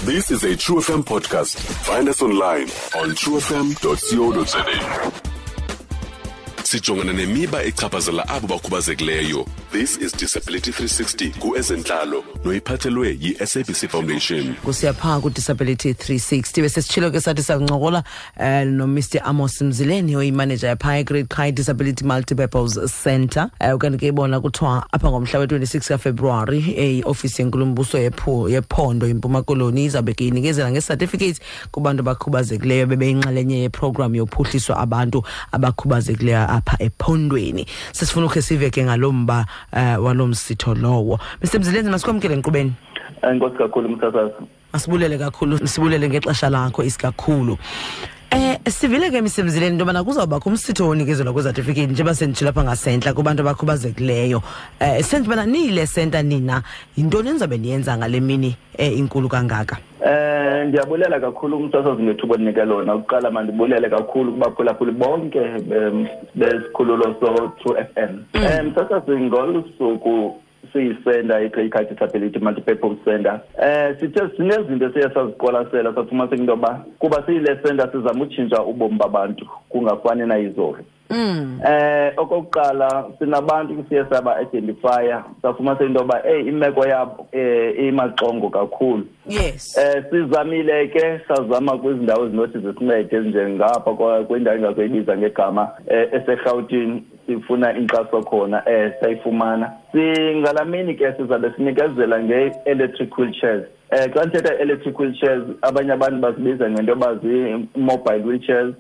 This is a True FM podcast. Find us online on truefm.co.za. Sijongana nemiba echaphazela abo bakhubazekileyo. This is Disability 360 kuezentlalo noyiphathelwe yi-SABC Foundation. Kusiya phaa ku-Disability 360, besesitshilo ke sathi sakuncokola noMr Amos Mzileni, oyimaneja yaphaa eGreat Kei Disability Multipurpose Centre. Ukanti ke bona kuthiwa apha ngomhla we-26 kaFebruwari, iofisi yenkulumbuso yephondo iMpuma Koloni izawube ke inikezela ngecertificate kubantu abakhubazekileyo bebeyinxalenye yeprogram yophuhliso abantu abakhubazekileyo apha ephondweni. Sesifuna ukhe sive ke ngalo mba walo msitho lowo. Mr Mzileni, masikwamkele enkqubeni. Enkosi kakhulu, msasazi. Masibulele kakhulu, sibulele ngexesha lakho isikakhulu. Sivile ke, Mr Mzileni, into yobana kuzawubakho umsitho wonikezelwa kwezatifiketi, njengoba senditshilo apha ngasentla, kubantu abakhubazekileyo. Senze ubana niyile senta nina, yintoni enizawube niyenza ngale mini inkulu kangaka? Ndiyabulela kakhulu, umsasazi, ngethuba ondinike lona. Ukuqala mandibulele kakhulu kubaphulaphuli bonke besikhululo so-True FM. Msasazi, ngolu suku siyisenta iGreat Kei Disability Multipurpose Center, sithe sinezinto esiye saziqwalasela, safumaniseka into yoba kuba siyile senta sizama utshintsha ubomi babantu kungafani nayizolo. Okokuqala sinabantu siye saba identifya, safumanisa into yoba hey, imeko yabo imaxongo kakhulu. Sizamile ke, sazama kwizindawo ezinothi zisincede ezinjengapha kwindawo engazoyibiza ngegama, eseRhawutini, sifuna inkxaso khona, sayifumana. Singalamini ke sizabe sinikezela nge-electric wheelchairs. Xa ndithetha electric wheelchairs, abanye abantu bazibiza ngento yoba zii-mobile wheelchairs,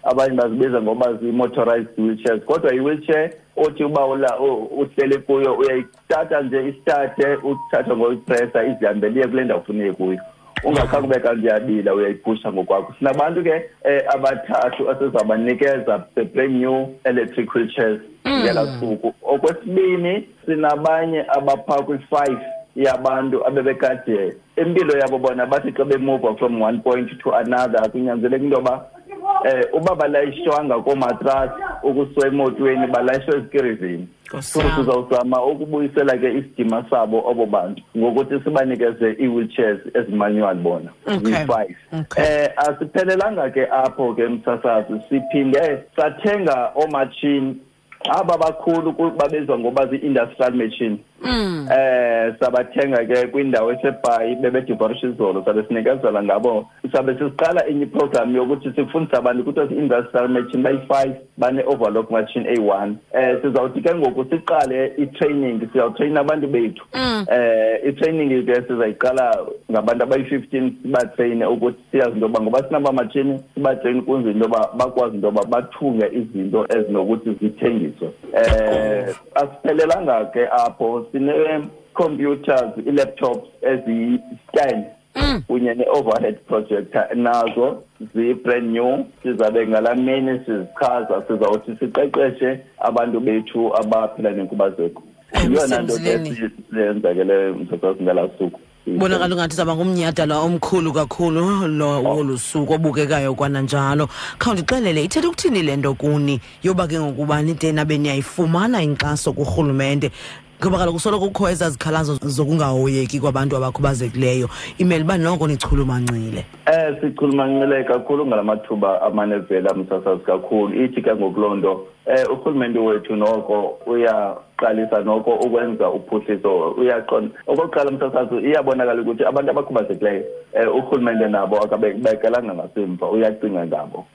abanye bazibiza ngoba zii-motorized wheelchairs, kodwa i-wheelchair othi uba uhleli kuyo, uyayithatha nje isithathe, uthathe ngoyipressa, izihambele iye kule ndawo ufuna iye kuyo, ungakhange ube kanti uyabila, uyayiphusha ngokwakho. Sinabantu ke abathathu esizabanikeza the brand new electric wheelchairs ngelaa suku. Okwesibini, sinabanye abaphaa kwi-5 yabantu abebekade impilo yabo bona bathi xa bemuva from one point to another, kunyanzeleka into yoba uba balayishwanga koomatrasi ukusuka emotweni, balayishwe ezikirizini. Nkosi So yam. sizawuzama ukubuyisela ke isidima sabo obo bantu ngokuthi sibanikeze ii-wheelchairs ezimanual bona, ziyi-5. Asiphelelanga ke apho ke, msasazi, siphinde sathenga oomatshini aba bakhulu, babizwa ngoba zii-industrial machine. Sabathenga ke kwindawo eseBhayi, bebedivorisha izolo, sabe sinikezela ngabo. Sabe sisiqala enye iprogram yokuthi sifundise abantu kuthiwa zii-industrial machine bayi-5, bane-overlock machine eyi-1. Sizawuthi ke ngoku siqale i-training, sizawutrayina abantu bethu. I-training ke sizayiqala ngabantu abayi-15, sibatrayine ukuthi siyazi into yoba ngoba sinaba matshini, sibatrayine ukuze into yoba bakwazi into yoba bathunge izinto ezinokuthi zithengiswe. Asiphelelanga ke apho, sine-computers, ii-laptops eziyi-10 kunye ne-overhead projector, nazo ziyi-brand new. Sizabe ngalaa mini sizichaza, sizawuthi siqeqeshe abantu bethu abaphila nenkubazeko. Yiyona nto ke Msemzileni. siyenza ke leyo, msasazi, ngalaa suku. Bonakala ungathi izawuba ngumnyhadala omkhulu kakhulu lo wolu suku obukekayo kwananjalo. Khawundixelele, ithetha ukuthini le nto kuni yoba ke ngokuba nide nabe niyayifumana inkxaso kurhulumente? Ngoba kaloku soloko kukho ezaa zikhalazo zokungahoyeki kwabantu abakhubazekileyo, imele uba noko nichulumancile. Sichulumancile kakhulu ngala mathuba amane evela, msasazi, kakhulu. Ithi ke ngoku loo nto, urhulumente wethu noko uyaqalisa noko ukwenza uphuhliso, uyaqonda. Okokuqala, msasazi, iyabonakala ukuthi abantu abakhubazekileyo, urhulumente nabo akabekelanga ngasemva, uyacinga ngabo.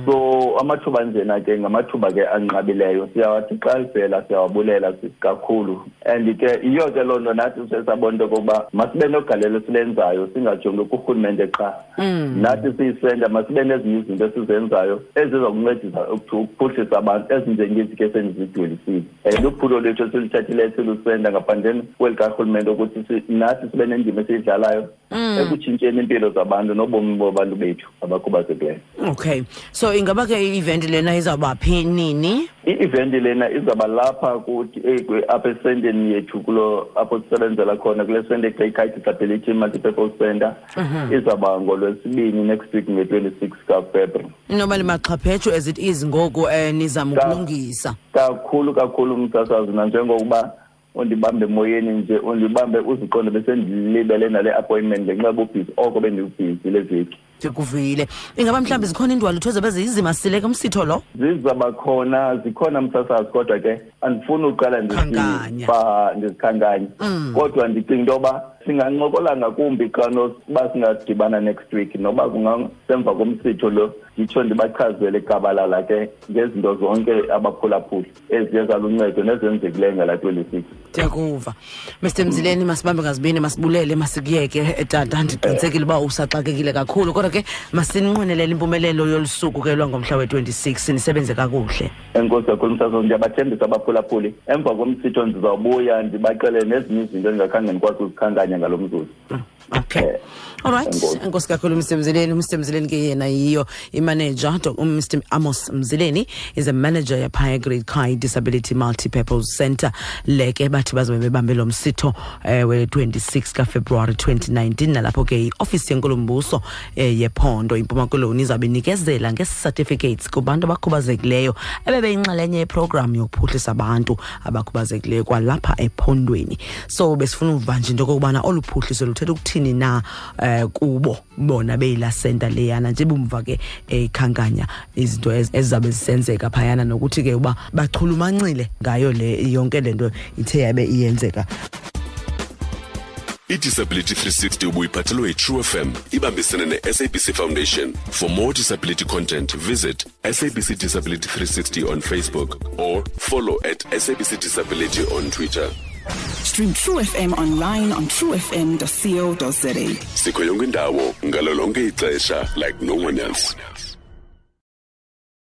So amathuba njena ke ngamathuba ke anqabileyo, siyawathi xa livela siyawabulela kakhulu. And ke yiyo ke loo nto nathi sesabona into yokokuba masibe nogalelo esilenzayo, singajongi kurhulumente qha. Nathi siyisenta masibe nezinye izinto esizenzayo eziza kuncedisa ukuphuhlisa abantu, ezinjengezi ke sendizidwelisile. Luphulo lwethu esiluthathileyo silusenta ngaphandleni kweli karhulumente, ukuthi nathi sibe nendima esiyidlalayo ekutshintsheni iimpilo zabantu nobomi babantu bethu abakhubazekileyo. Okay, so ingaba ke i-event lena izawuba phi, nini? I-event lena izawuba lapha kuthi, apha esenteni yethu, kulo apho sisebenzela khona, kule sente Great Kei Disability Multipurpose Center. Izawuba ngolwesibini next week, nge-26 kaFebruary. Inoba limaxhaphetshu as it is ngoku, nizama ukulungisa. Kakhulu kakhulu, msasazi, nanjengokuba Undibambe emoyeni nje, undibambe uziqonde besendilibele nale appointment ngenxa yobubhizi oko bendibhizi le veki. Ndikuvile. Ingaba mhlawumbi zikhona iindwalutho ezabe ziyizimasile ke umsitho lo? Zizaba khona, zikhona msasazi, kodwa ke andifuni uqala ndizikhankanye. Kodwa ndicinga into yoba singancokola ngakumbi xa noba singadibana next week, noba kungasemva komsitho lo, nditsho ndibachazele gabalala ke ngezinto zonke abaphulaphuli eziye zaluncedo nezenzekileyo ngala 26. Ndiyakuva, Mr Mzileni. Masibambe ngazibini, masibulele, masikuyeke tata. Ndiqinisekile uba usaxakekile kakhulu, kodwa ke masinqwenelele impumelelo yolu suku ke lwangomhla we-26. Nisebenze kakuhle. Enkosi kakhulu msasazi. Ndiyabathembisa abaphulaphuli, emva komsitho ndizawubuya ndibaxelele nezinye izinto endingakhange ndikwazi uzikhankanya ngalo mzuzu. Okay, all right. Enkosi kakhulu, Mr Mzileni. Mr Mzileni ke yena yiyo imanager. Mr Amos Mzileni is a manager yaphaya Great Kai Disability Multipurpose Center. Le ke bathi bazobe bebambe lo msitho we-26 kaFebruwari 2019, nalapho ke iofisi yenkulumbuso yephondo iMpuma Koloni izawube inikezela ngee-certificates kubantu abakhubazekileyo ebebeyinxalenye yeprogram yokuphuhlisa abantu abakhubazekileyo kwalapha ephondweni. So besifuna uva nje into okokubana olu phuhliso luthetha ukuthini na kubo bona beyila center leyana, nje bumva ke ekhankanya izinto ezizabe zisenzeka phayana, nokuthi ke uba bachulumancile ngayo le yonke le nto ithe yabe iyenzeka. I-Disability 360 ubuyiphathelwe yi-True FM ibambisene ne-SABC Foundation. For more disability content, visit SABC Disability 360 on Facebook or follow @SABCDisability on Twitter. Stream True FM online on truefm.co.za. Sikho yonke indawo ngalo lonke ixesha like no one else.